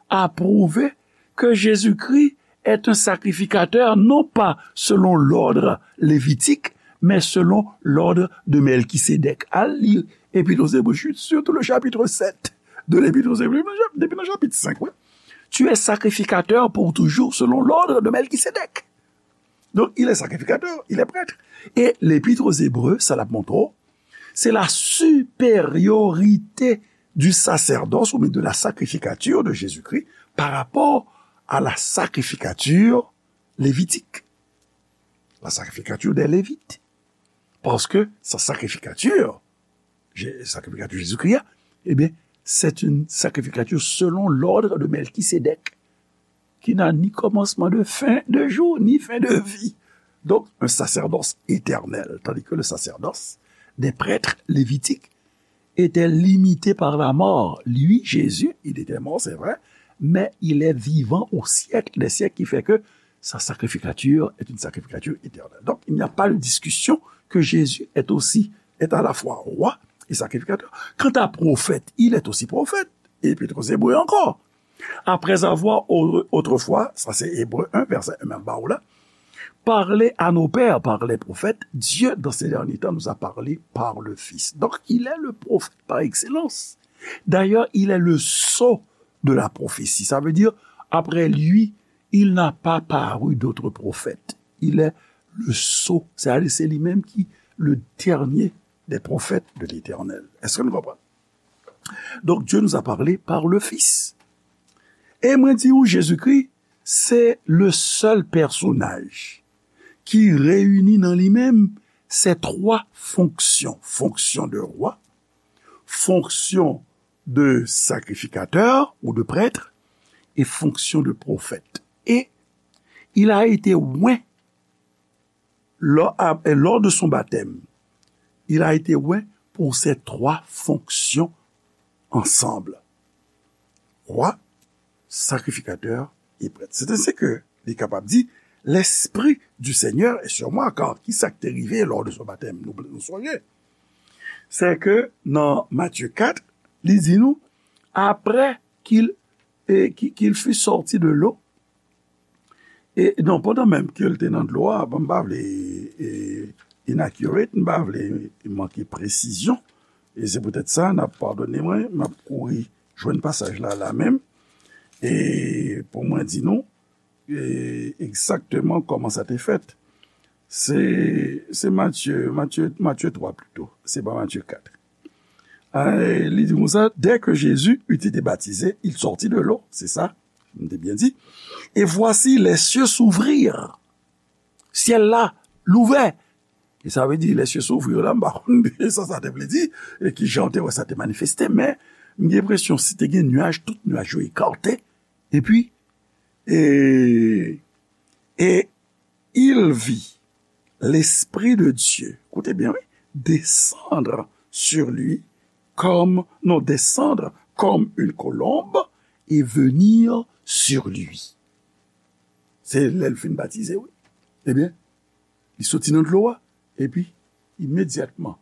à prouver que Jésus-Christ est un sacrificateur, non pas selon l'ordre lévitique, mais selon l'ordre de Melchisédek. Al li Épître aux Hébreux, surtout le chapitre sept de l'Épître aux Hébreux, depi nan chapit senk, wi. Tu es sacrificateur pour toujours selon l'ordre de Melchisédek. Donc, il est sacrificateur, il est prêtre. Et l'Épître aux Hébreux, sa l ap montre w, c'est la supériorité du sacerdoce ou bien de la sacrificature de Jésus-Christ par rapport à la sacrificature lévitique. La sacrificature des Lévites. Parce que sa sacrificature, Jé-, sacrificature Jésus-Christ, eh bien, c'est une sacrificature selon l'ordre de Melchisédek, qui n'a ni commencement de fin de jour, ni fin de vie. Donc, un sacerdoce éternel, tandis que le sacerdoce des prêtres lévitiques était limité par la mort. Lui, Jésus, il était mort, c'est vrai, mais il est vivant au siècle des siècles, qui fait que sa sacrificature est une sacrificature éternelle. Donc, il n'y a pas de discussion que Jésus est aussi, est à la fois roi et sacrificateur. Quant à prophète, il est aussi prophète. Et Épître aux Hébreux encore. Après avoir au-, autrefois, sa se Ebre en, vèsè en m ap ba w la, parlé à nos pères par les prophètes, Dieu, dans ces derniers temps, nous a parlé par le Fils. Donc, il est le prophète par excellence. D'ailleurs, il est le sceau de la prophétie. Ça veut dire, après lui, il n'a pas paru d'autre prophète. Il est le sceau. C'est-à-dire, c'est lui-même qui, le dernier des prophètes de l'Éternel. Est-ce que nous comprenons? Donc, Dieu nous a parlé par le Fils. E mwen di w, Jezikri, se le sèl pèsonaj ki reyini nan li menm ces trois fonctions. Fonction de roi, fonction de sacrificateur ou de prêtre, et fonction de prophète. Et il a été oint lors, à- lors de son baptême, il a été oint pour ces trois fonctions ensemble. Roi, sacrificateur et prêtre. C'est ainsi que li kapab di, L'Esprit du Seigneur est sur moi, car ki sa k te rive lors de son baptême? Nou, nou sonje. Se ke nan Matye kat, li di nou, après qu'il, et, qu'il, qu'il fut sorti de l'eau, e non, pandan menm ke l te nan dlo a, bon, m pa vle e, inaccurate, m pa vle manke presizyon, e se poutèt sa, n ap padone mwen, m ap kouri jwenn pasaj la, la menm, e pou mwen di nou, e, egzakteman kòman sa te fèt. Se, se Matye, Matye, Matye twa pito, se pa Matye kat. E, li di konsa, dès que Jésus eut été baptisé, il sortit de l'eau, se sa, m te byen di. Et voici, les cieux s'ouvrirent. Syèl la louvè. E sa vle di, les cieux s'ouvrirent la, m pa konn sa sa te vle di, e ki jan te wè sa te manifeste, men m gen enpresyon si te gen nyaj, tout nyaj yo ekate, epi, e, e il vit l'Esprit de Dieu, koute byen, wi, descendre sur lui comme, non, descendre comme une colombe et venir sur lui. Se lè l fin batize, wi. Ebyen, li soti nan dlo a, epi, imedyatman,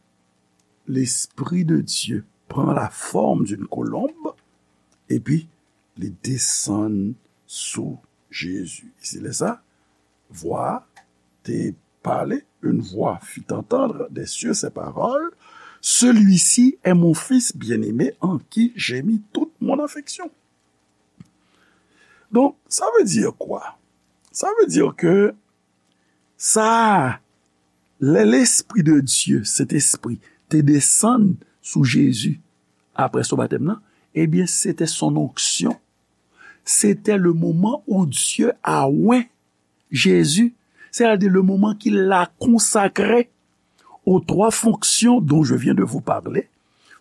l'Esprit de Dieu prend la forme d'une colombe, epi, li desann sou Jezi. E se lè sa, vwa a te pale, une voix fit entendre des cieux ces paroles, Celui-ci est mon Fils bien-aimé en qui j'ai mis toute mon affection. Donk, sa vle di kwa? Sa vle di ke sa, lè Lespri de Dye, Sentespri, te desann sou Jezi apre son batèm nan, ebyen, se te son onction. Se te le moman où Dieu a oint Jésus, c'est-à-dire le moment qu'il l'a consacré aux trois fonctions dont je viens de vous parler,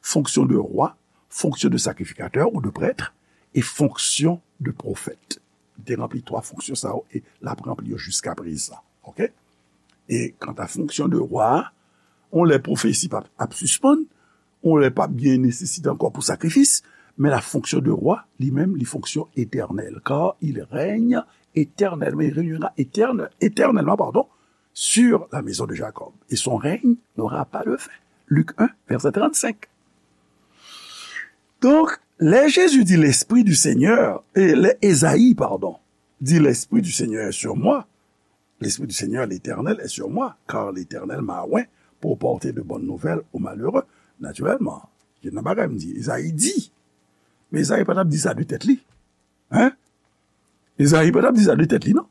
fonction de roi, fonction de sacrificateur ou de prêtre, et fonction de prophète. Li te ranpli twa fonksyon sa yo e l ap ranpli yo jiskaprezan. Oke? E kanta fonksyon de wa a, yon lè pwofesi p ap, ap sispann, yon lè p ap gen nesesite ankò pou sakrifis, men la fonction de roi, li menm, li fonksyon etènèl, car il règne éternellement, il régnera éterne-, éternellement, pardon, sur la maison de Jacob, et son règne n'aura pas de fin. Luc un, verset trente-cinq. Donk, lè Jezi di, Lespri di Senyè, e lè Ezayi, padon, di, Lespri di Senyè est sur moi, L'Esprit du Seigneur l'Éternel est sur moi, car l'Éternel m'a oint pour porter de bonnes nouvelles aux malheureux. Natirèlman, gen nan bagay m di, Ezayi di. Men Ezayi pa t ap di sa de tèt li. Hein? Ezayi pa t ap di sa de tèt li, non.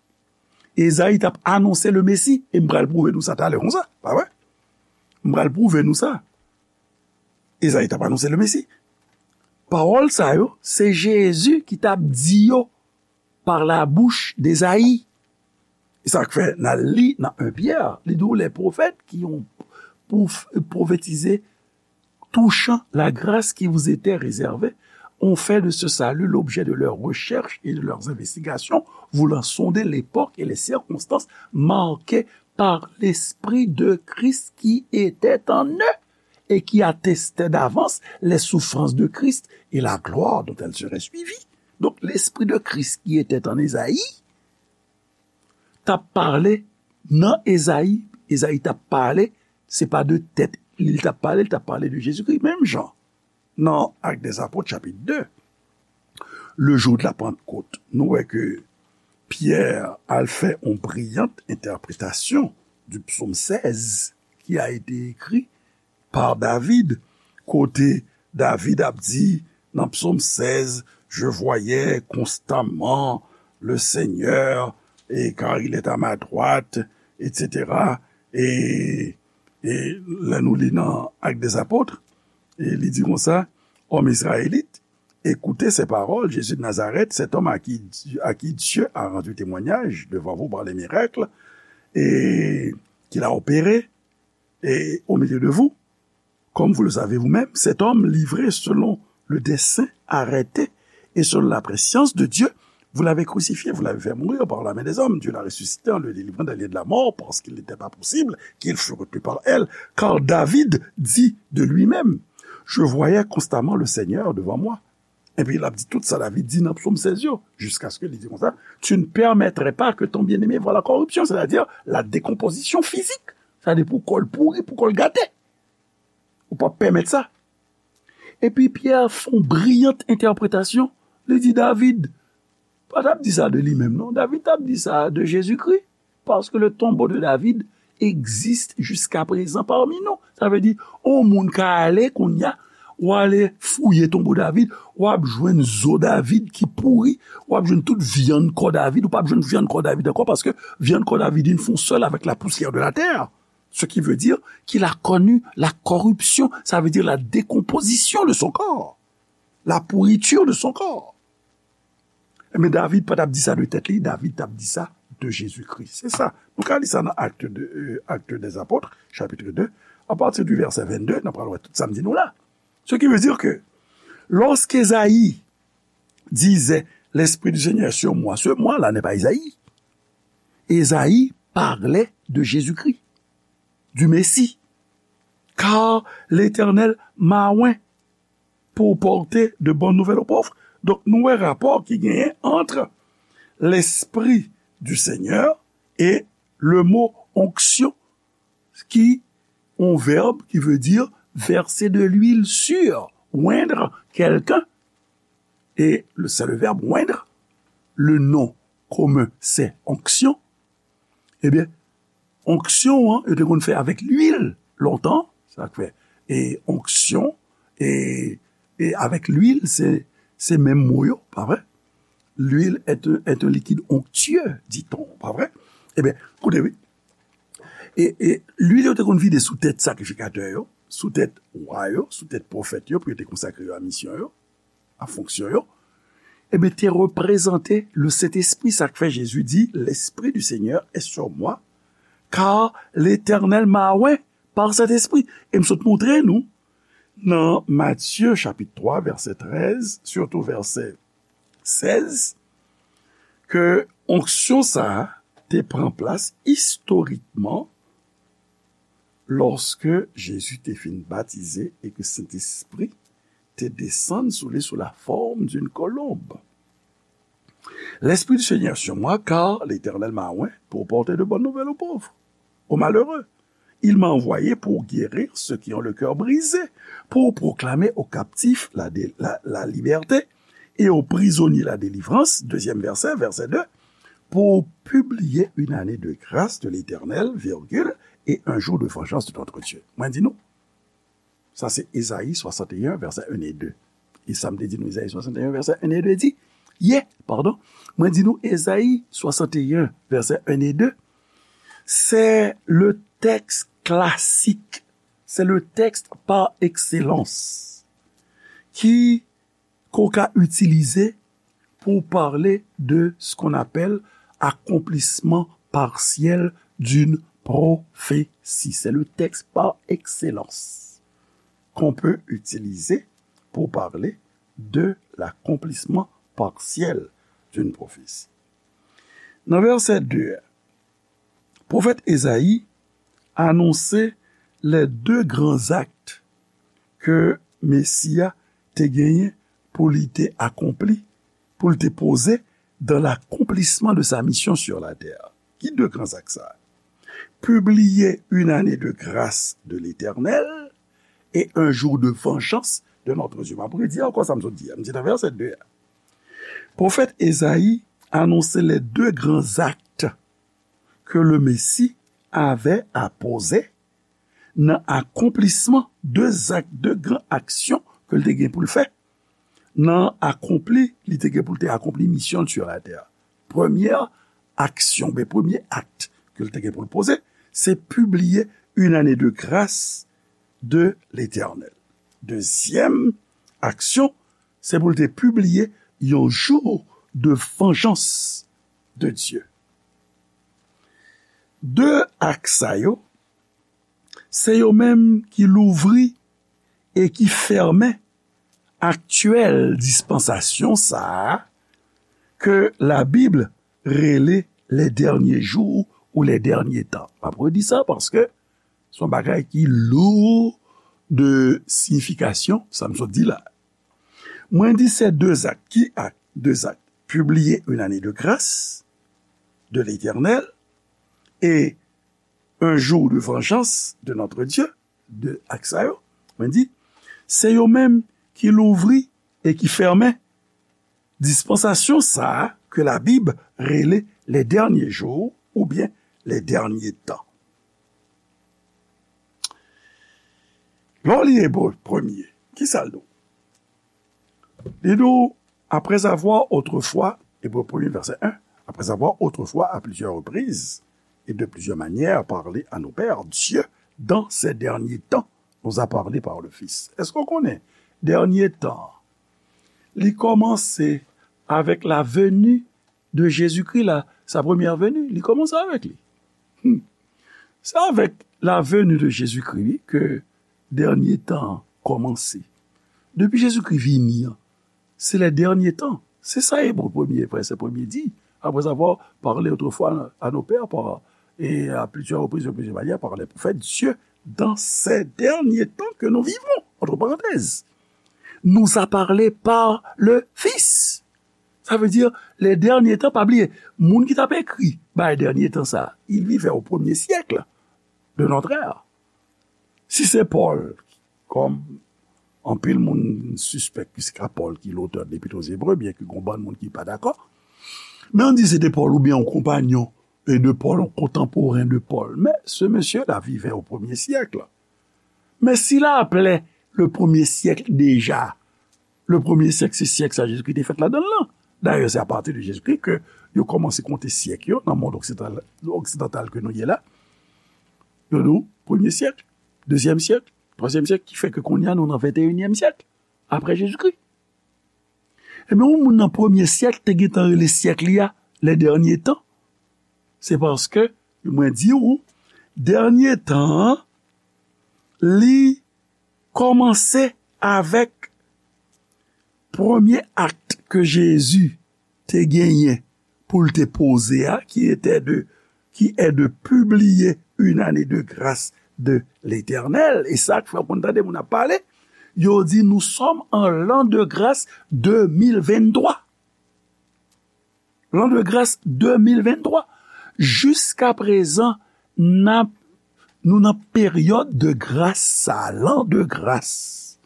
Ezayi t ap anonse le Mesi. E m pral pwouve nou sa talè konsa, pa vre? M pral pwouve nou sa. Ezayi t ap anonse le Mesi. Pawòl sa yo, se Jezi ki t ap di yo par la bouche d'Esaïe. E sa k fè n al li nan un Pyè, li di w, les prophètes qui ont prof-, prophétisé touchant la grâce qui vous était réservée ont fait de ce salut l'objet de leurs recherches et de leurs investigations, voulant sonder l'époque et les circonstances marquées par l'Esprit de Christ qui était en eux et qui attestait d'avance les souffrances de Christ et la gloire dont elles seraient suivies. Donk, Lespri de Kris ki te an Ezayi t ap pale nan Ezayi, Ezayi t ap pale, se pa de tèt li t ap pale, li t ap pale de Jezikri. Menm jan, nan Actes des Apôtres, chapit de, le jour de la Pentecôte, nou wè ke Pyè al fè yon briyant entèpretasyon du psaume seize qui a été écrit par David, kote David ap di nan psaume seize, je voyais constamment le Seigneur, et car il est à ma droite, et cetera. E, e lè nou li nan Actes des Apôtres, e li di konsa, Homme israélite, écoutez ces paroles, Jésus de Nazareth, cet homme à qui, à qui Dieu a rendu témoignage devant vous par les miracles, et qu'il a opéré, et au milieu de vous, comme vous le savez vous-même, cet homme livré selon le dessein arrêté et selon la prescience de Dieu, Vous l'avez crucifié, vous l'avez fait mourir par la main des hommes. Dieu l'a ressuscité en le délivrant des liens de la mort, parce qu'il n'était pas possible qu'il fût retenu par elle. Car David dit de lui-même, je voyais constamment le Seigneur devant moi. Epi l ap di tout sa David di nan Psaume seize yo, jusqu'à ce que li di konsa, tu ne permettrais pas que ton bien-aimé voie la corruption, c'est-à-dire la décomposition physique. Sa di pou kò l pouri, pou kò l gate. Ou p ap pèmèt sa. Epi Pyè fè yon briyant entèpretasyon. Li di David pa t ap di sa de li menm, non. David t ap di sa de Jezikri. Parce que le tombeau de David existe jusqu'à présent parmi nous. Sa vle di, yon moun ka ale kounye a, w ale fouye tonbo David, w ap jwenn zo David ki pouri, w ap jwenn tout vyann kò David, ou p ap jwenn vyann kò David ankò, paske vyann kò David vin fon sèl avèk la poussière de la terre. Ce qui veut dire qu'il a connu la corruption, ça veut dire la décomposition de son corps, la pourriture de son corps. Men David pa t ap di sa de tèt li, David t ap di sa de Jezikri. Se sa. Nou ka li sa nan Actes de, euh, Actes des Apôtres, chapitre deux, à partir du verset vingt-deux, n ap pral wè tout sa m di nou la. Ce qui veut dire que lorsque Ésaïe disait, l'Esprit du Seigneur est sur moi, ce moi-là n'est pas Ésaïe. Ésaïe parlait de Jésus-Christ, du Messie. Car l'Éternel m'a oint pour porter de bonnes nouvelles aux pauvres. Donk, nou wè rapò ki genyen entre l'Esprit du Seigneur et le mot onction, ki yon vèb ki vle di verser de l'huile sur, oindre quelqu'un. Et le, c'est le verbe oindre. Le nom commun, c'est onction. Ebyen, onksyon an, yo te konn fè avèk lwil lontan, sa k fè, e onksyon, e, e avèk lwil, se, se menm mo yo, pa vre? L'huile est un, est un liquide onctueux, dit-on, pa vre? Ebyen, koute, wi. E, e lwil yo te konn vide sou tèt sakrifikatè yo, sou tèt wa yo, sou tèt pwofèt yo, pou yo te konsakre yo a misyon yo, a fonksyon yo, ebyen, te reprezante le Sentespri. Sa k fè Jezi di, l'Esprit du Seigneur est sur moi, car l'Éternel m'a oint par Sentespri. E m sot montre nou, nan Matye chapit twa, vèsè trèz, sitou vèsè sèz, ke onksyon sa a te pran plas istorikman lòske Jezi te fin batize e ke Sentespri te desann sou li sou la forme d'une colombe. L'Esprit du Seigneur sur moi, car l'Éternel m'a oint pour porter de bonnes nouvelles aux pauvres, aux malheureux. Il m'a envoyé pour guérir ceux qui ont le cœur brisé, pour proclamer aux captifs la, dé- la, la liberté et aux prisonniers la délivrance. Deuxième verset, verset deux, pour publier une année de grâce de l'Éternel, virgule, et un jour de vengeance de notre Dieu. Mwen di nou, sa se Ezayi swasanteyen, vèsè un e de. E sa m te di nou, Ezayi swasanteyen, vèsè un e de di, ye, padon, mwen di nou, Ezayi swasanteyen, vèsè un e de, c'est le texte classique, c'est le texte par excellence ki ke w ka itilize pour parler de ce qu'on appelle accomplissement partiel d'une prophétie. C'est le texte par excellence qu'on peut utiliser pour parler de l'accomplissement partiel d'une prophétie. Nan vèsè de a, pwofèt Ezayi anonse les deux grands actes ke Mesi a te genyen pou li te akonpli, pou li te poze dans l'accomplissement de sa mission sur la terre. Ki de gran zak sa a? Publier une année de grâce de l'Éternel et un jour de vengeance de notre Dieu. M ap redi ankò sa m sot di a. M di nan vèsè de a. Pwofèt Ezayi anonse les deux grands actes que le Messie avait à poser nan akonplisman de zak, de gran aksyon ke l te gen pou l fè, nan akonpli, li te gen pou l te akonpli misyon l sur la terre. Premyè aksyon, ben, premye akt ke l te gen pou l poze, se pibliye une année de grâce de l'Éternel. Dezyèm aksyon, se pou l te pibliye yon jou de vengeance de Dieu. De akt sa yo, se yo menm ki louvri e ki fèmen aktyèl dispansasyon sa a ke Labib rele les derniers jours ou les derniers temps. M ap redi sa paske se yon bagay ki lou de siyifikasyon, sa m sot di la. Mwen di se de zak. Ki ak? De zak. Publier une année de grâce de l'Éternel et un jour de vengeance de notre Dieu, de ak sa yo, mwen di, se yo menm ki louvri e ki fèmen dispansasyon sa a ke Labib rele les derniers jours oubyen les derniers temps. Lè w li Ebre premye, ki sa l di w? Li di w, après avoir autrefois, Ebre premye vèsè en, après avoir autrefois à plusieurs reprises et de plusieurs manières parlé à nos pères, Dieu, dans ces derniers temps, nous a parlé par le Fils. Èske w konnen dènye tan an, li kòmanse avèk la venue de Jésus-Christ, la, sa première venue, li kòmanse avèk li. Hmm. Se avèk la venue de Jésus-Christ, wi, ke dènye tan an kòmanse. Depi Jezikri vini an, se les derniers temps. Se sa Ebre premye, vèsè premye di. Après avoir parlé autrefois à nos pères par, et à plusieurs reprises, de plusieurs manières, par les prophètes, Dieu, dans ces derniers temps que nous vivons, entre parenthèses, nous a parlé par le Fils. Sa vle di, les derniers temps, pa bliye, moun ki t ap ekri bay dènye tan sa, il vivait au premier siècle de notre ère. Si se Pòl, kòm anpil moun sispèk ke se ka Pòl ki lotè de Lepit aux Ebre, byenke gen yon bann moun ki pa dakò, men ann di se te Pòl oubyen yon konpanyon e de Pòl, yon kontanporen de Pòl. Mais ce monsieur-là vivait au premier siècle. Mais s'il appelait le premier siècle déjà, le premier siècle, se syèk sa Jezikri te fèt ladan l lan. Dayè, se apati de Jezikri ke yo kòmanse konte syèk yo nan mond oksidantal, oksidantal ke nou ye la. Yo di w premye syèk, dezyèm syèk, twazyèm syèk, ki fè ke kounye a nou nan venteyinyèm syèk apre Jezikri. Ebyen, yon moun nan premye syèk te gentan rele syèk li a les derniers temps. Se paske, mwen di w, dènye tan an, li kòmanse avèk premye akt ke Jezi te genyen pou l te poze a, ki était de, qui est de publier une année de grâce de l'Éternel. E sa k fè w konn tande moun ap pale, yo di, nous sommes en l'an de grâce deux mille vingt-trois. L'an de grâce deux mille vingt-trois. Jiska prezan, n ap, nou nan peryòd de gras sa, l'an de grâce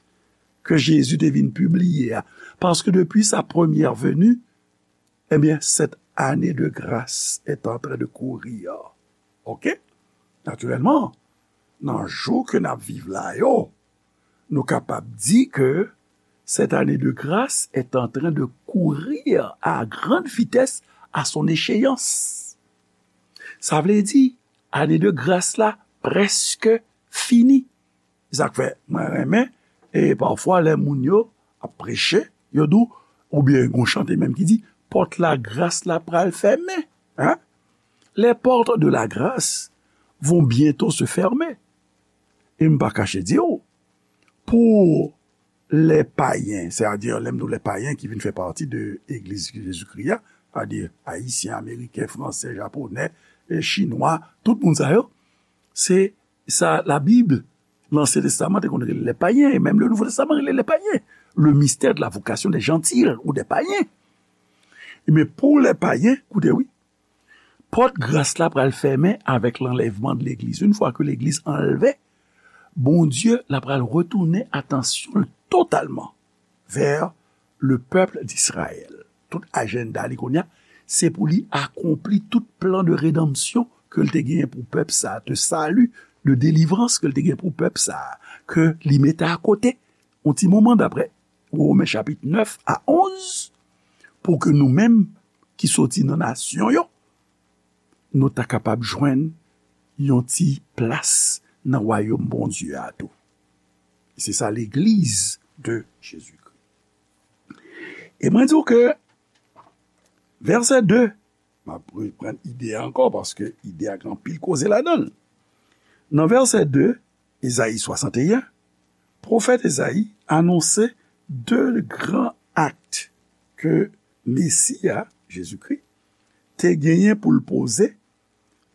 ke Jezi te vin pibliye a. Paske depi sa première venue, eh bien, cette année de grâce est en train de courir. Ok? Naturellement, nan jou ke n ap viv la yo, nou kapab di ke cette année de grâce est en train de courir à grande vitesse à son échéance. Sa vle di, ane de gras la prèske fini. Se sa k fè mwen renmen, e pafwa lè moun yo ap preche, yo di w, oubyen gon chante menm ki di, pòt la gras la pral fèmen. Hein? Les portes de la grâce vont bientôt se fermer. E m pa kache di w, pou lè payen, sètadi lè m di w lè payen ki vin fè pati de Legliz Jezikri a, sètadi Ayisyen, Ameriken, Fransè, Japonè, e Chinwa, tout moun sa yo, se sa Labib, Lansyen Testaman te konn rele lè payen, e menm le Nouvo Testaman rele lè payen. Le mystère de la vocation des gentils ou des païens. Men pou lè payen, koute wi, pòt gras la pral fèmen avèk lanlèvman de legliz. Yon fwa ke legliz anlve, Bondye la pral retounen atansyon l totalman vè le pèp d'Izrayèl. Tout ajanda li kounye a, se pou li akonpli tout plan de redanmsyon ke l te genyen pou pèp sa a, de sali, de delivrans ke l te genyen pou pèp sa a, ke li mete akote yon ti moman, daprè Women chapit nèf a onz, pou ke nou menm ki soti nan nasyon yo, nou ta kapab jwenn yon ti plas nan wayòm Bondye a tou. Se sa legliz de Jezikri. E mwen di w ke vèsè de, m ap reprann ide a ankò, paske ide a gen anpil koze ladan l. Nan vèsè de, Ezayi swasanteyen, pwofèt Ezayi anonse de gran akt ke Mesi a, Jezikri, te genyen pou l poze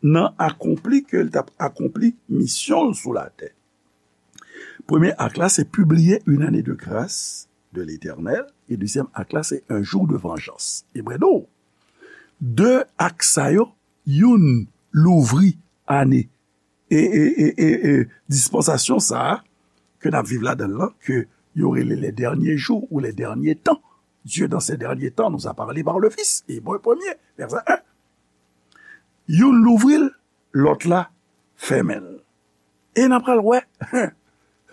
nan akonpli ke l t ap akonpli misyon l sou latè. Premye ak la, se publier une année de grâce de l'Éternel, e dezyèm ak la, se un jour de vengeance. Ebre nou, de ak sa yo, youn louvri ane e, e, e, e, e dispansasyon sa a ke n ap viv ladan l lan, ke yo rele les derniers jours ou les derniers temps. Dieu, dans ces derniers temps, nous a parlé par le Fils. Ebre premye, vèsè en. Youn louvri l, lòt la fèmen l. E n a pral wè.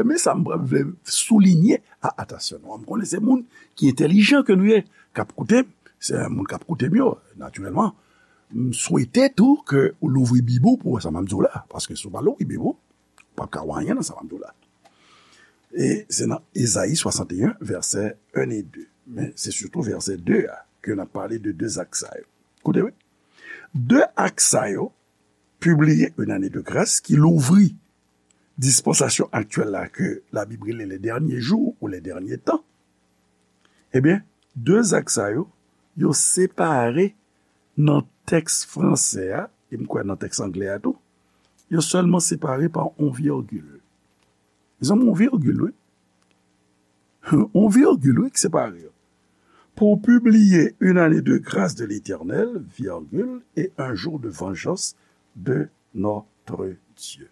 Men sa m pral vle soulinye a atansyon nou. M konnen se moun ki entèlijan ke nou ye, k ap koute m. Se moun k ap koute m yo, natirèlman. M swete tou ke ou louvri Bib ou pou wè sa m ap di w la. Paske si w pa louvri Bib ou, ou p ap ka wè anyen nan sa m ap di w la. E se nan Ezayi swasanteyen, vèsè en e de. Men se sitou vèsè de a ke n ap pale de de ak sa yo. Koute, wi. De ak sa yo, publier une année de grâce, ki louvri dispansasyon aktyèl la ke Labib rele les derniers jours ou les derniers temps, ebyen, de ak sa yo, yo separe nan tèks franse a, e m kwè nan tèks anglè a tou, yo sèlman separe pa yon virgil. Mezanmi, yon virgil, wi. Yon virgil, wi, ki separe yo. Pour publier une année de grâce de l'Éternel, virgule, et un jour de vengeance de notre Dieu.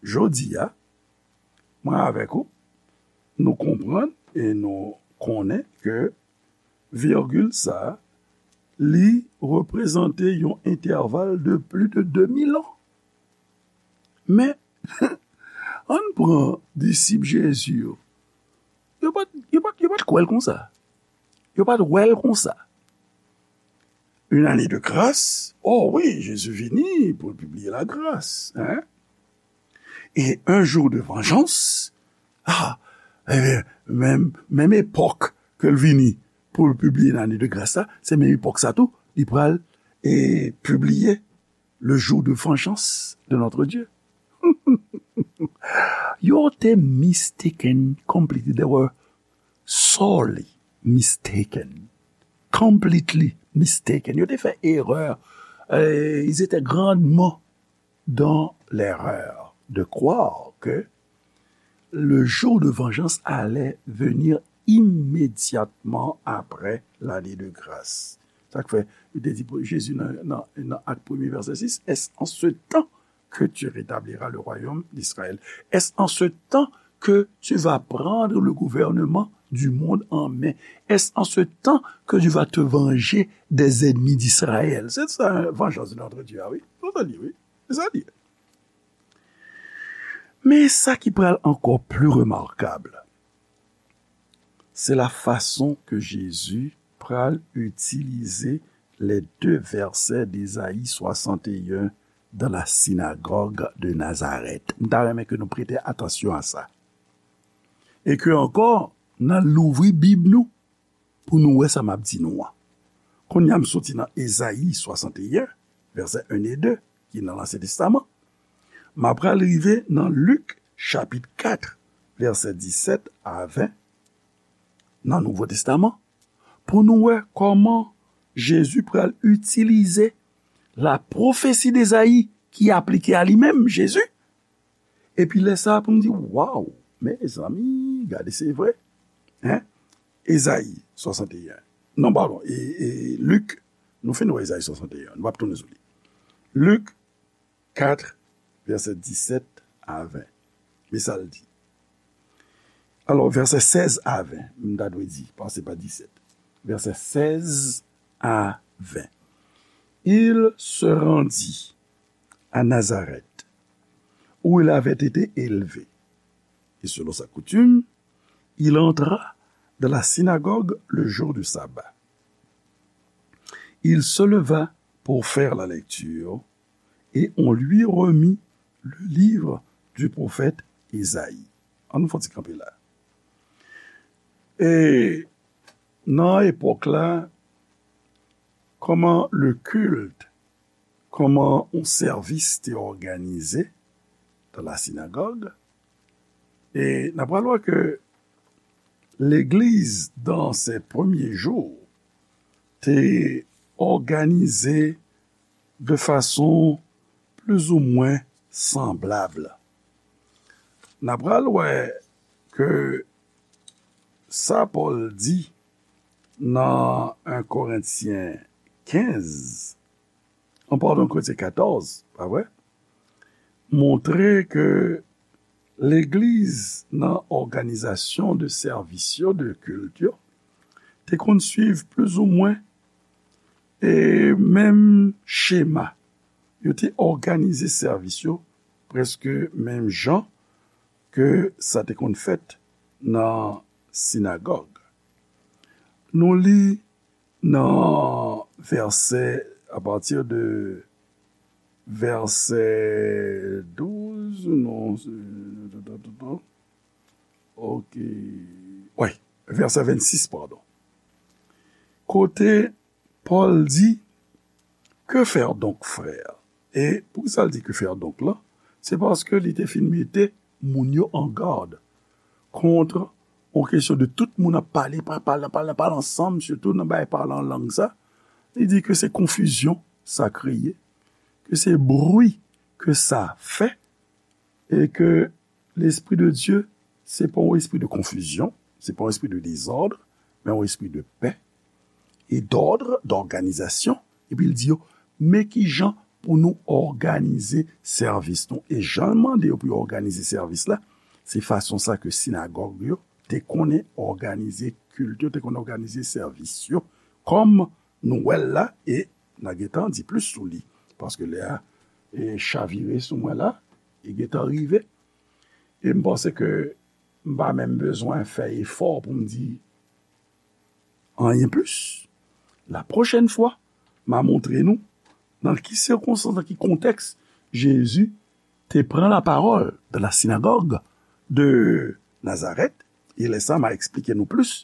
Jodi a, mwen avèk ou, nou konprann e nou konnen ke virgil sa a, li reprezante yon entèval de plis de de mil an. Men, ann pran disip Jezi yo. Yo pa t, yo pa t, yo pa t kwè l konsa. Yo pa t wè l konsa. Une année de grâce, oh wi, Jezi vini pou l pibliye lagras, hein? Et un jour de vengeance, ah, ebyen, menm, menm epòk ke l vini pou l pibliye ane de gras la, se menm epòk sa tou, li pral, e, pibliye le jour de vengeance de notre Dieu. Yo te mistaken completely. They were sorely mistaken. Completely mistaken. Yo te fè erè. Euh, ils étaient grandement dans l'erreur de croire que le jour de vengeance allait venir immédiatement après l'année de grâce. Sa k fè, li te di pou Jezi nan, nan, nan Ak premye, vèsè sis, est-ce en ce temps que tu rétabliras le royaume d'Israël? Est-ce en ce temps que tu vas prendre le gouvernement du monde en main? Est-ce en ce temps que tu vas te venger des ennemis d'Israël? Se sa, vengeance de notre Dieu, ah wi. Se sa li, wi. Se sa li. Men sa ki pral ankò pli remakab, se la fason ke Jezi pral itilize les deux versets d'Ésaïe soixante et un dans la synagogue de Nazareth. M ta renmen ke nou prete atansyon a sa. E ke ankò, n a louvri Bib nou pou nou wè sa m ap di nou an. Kounye a, m soti nan Ezayi swasanteyen, vèsè en e de, ki nan Ansyen Testaman. M ap pral rive nan Lik, chapit kat, vèsè disèt a ven, nan Nouvo Testaman, pou nou wè kòman Jezi pral itilize la pwofesi d'Ezayi ki aplike a li menm, Jezi. Epi lè sa a pou m di, waw, mezanmi, gade, se vre. Hein? Ezayi swasanteyen. Non, padon, e, e Lik, nou fin wè Ezayi swasanteyen, nou p ap tounen sou li. Lik kat, vèsè disèt a ven. Men sa l di. Alò, vèsè sèz a ven, m ta dwe di, paske se pa disèt. Vèsè sèz a ven. Il se rendit à Nazareth, où il avait été élevé. Et selon sa coutume, il entra dans la synagogue le jour du sabbat. Il se leva pour faire la lecture, et on lui remit le livre du prophète Isaïe. Ann nou fè yon ti kanpe la. E nan epòk la, kòman le culte, kòman yon sèvis te òganize dans la synagogue, e n ap pral wè ke legliz, dans ses premiers jours, te òganize de fason plizoumwen sanblab. N a pral wè ke sa Pòl di nan en Korentyen kenz, an padon, Korentyen katòz, pa vre? Montre ke legliz nan òganizasyon de sèvis yo, de kilt yo, te konn swiv plizoumwen e menm chema. Yo te òganize sèvis yo prèske menm jan ke sa te konn fèt nan sinagòg. Nou li nan vèsè, apati de vèsè douz, non, se, ok, wi, vèsè vennsis, padon. Kote Pòl di, Que faire donc, frères? E poukisa l di que faire donc la? Se paske li te fin mete moun yo an gad kont yon kesyon de tout moun ap pale, pa-, pale, pale, pale ansanm, sitou nan bagay pale an lang sa. Li di ke se konfizyon sa kreye, ke se bri ke sa fè, e ke Lespri de Dye, se pa yon espri de konfizyon, se pa yon espri de dezòd, men yon espri de pè e dòd, dòganizasyon. Epi l di yo, men ki jan pou nou òganize sèvis nou. E jan l mande yo pou yo òganize sèvis la, se fason sa ke sinagòg yo te konnen òganize kilt yo, te konnen òganize sèvis yo. Kòm nou wè l la, e n a gentan di plis sou li, paske lè a, e, chavire sou mwen la, e gentan rive. E m panse ke m pa menm bezwen fè efò pou m di anyen plis. La pwochèn fwa, m a montre nou nan ki sikonstans, nan ki kontèks Jezi te pran lapawòl dans la synagogue de Nazareth, e lè sa a, m a eksplike nou plis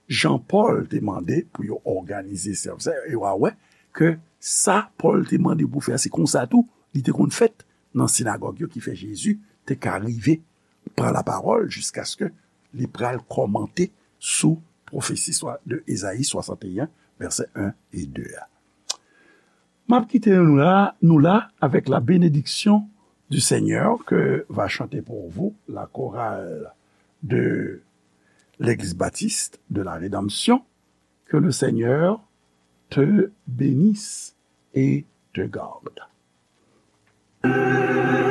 jan Pòl te mande pou yo òganize sèvis la, e w a wè ke sa Pòl te mande pou fè a, se konsa tou li te konn fèt nan sinagòg yo, ki fè Jezi te ka rive pran lapawòl jiskaske li pral kòmante sou pwofesi swa-, de Ezayi swasanteyen, vèsè en e de a. M ap kite nou la, nou la avec la bénédiction du Seigneur que va chanter pour vous la chorale de l'Église Baptiste de la Rédemption. Que le Seigneur te bénisse et te garde.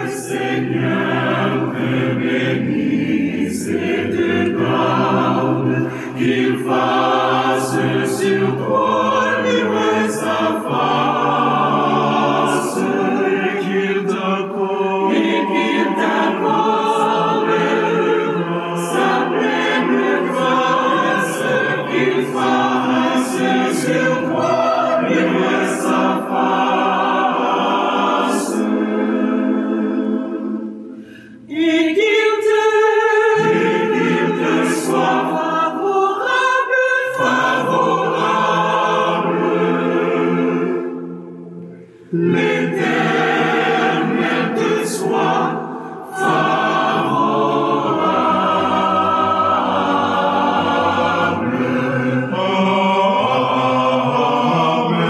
Seigneur te bénisse et te garde, qu'il fasse sur toi luire sa face, et qu'il t'accorde, et qu'il t'accorde sa pleine grâce, qu'il fasse sur toi luire sa face. Et qu'il te, et qu'il te soit favorable, favorable. L'Éternel te soit favorable. Amen.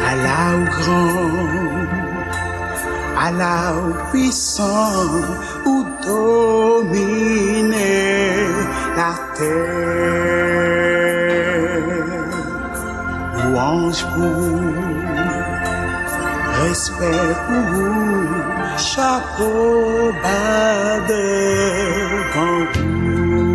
Ala ou gran, ala ou pwisan, ou domine latè. Lwanj pou ou, respè pou ou, chapo ba devan ou.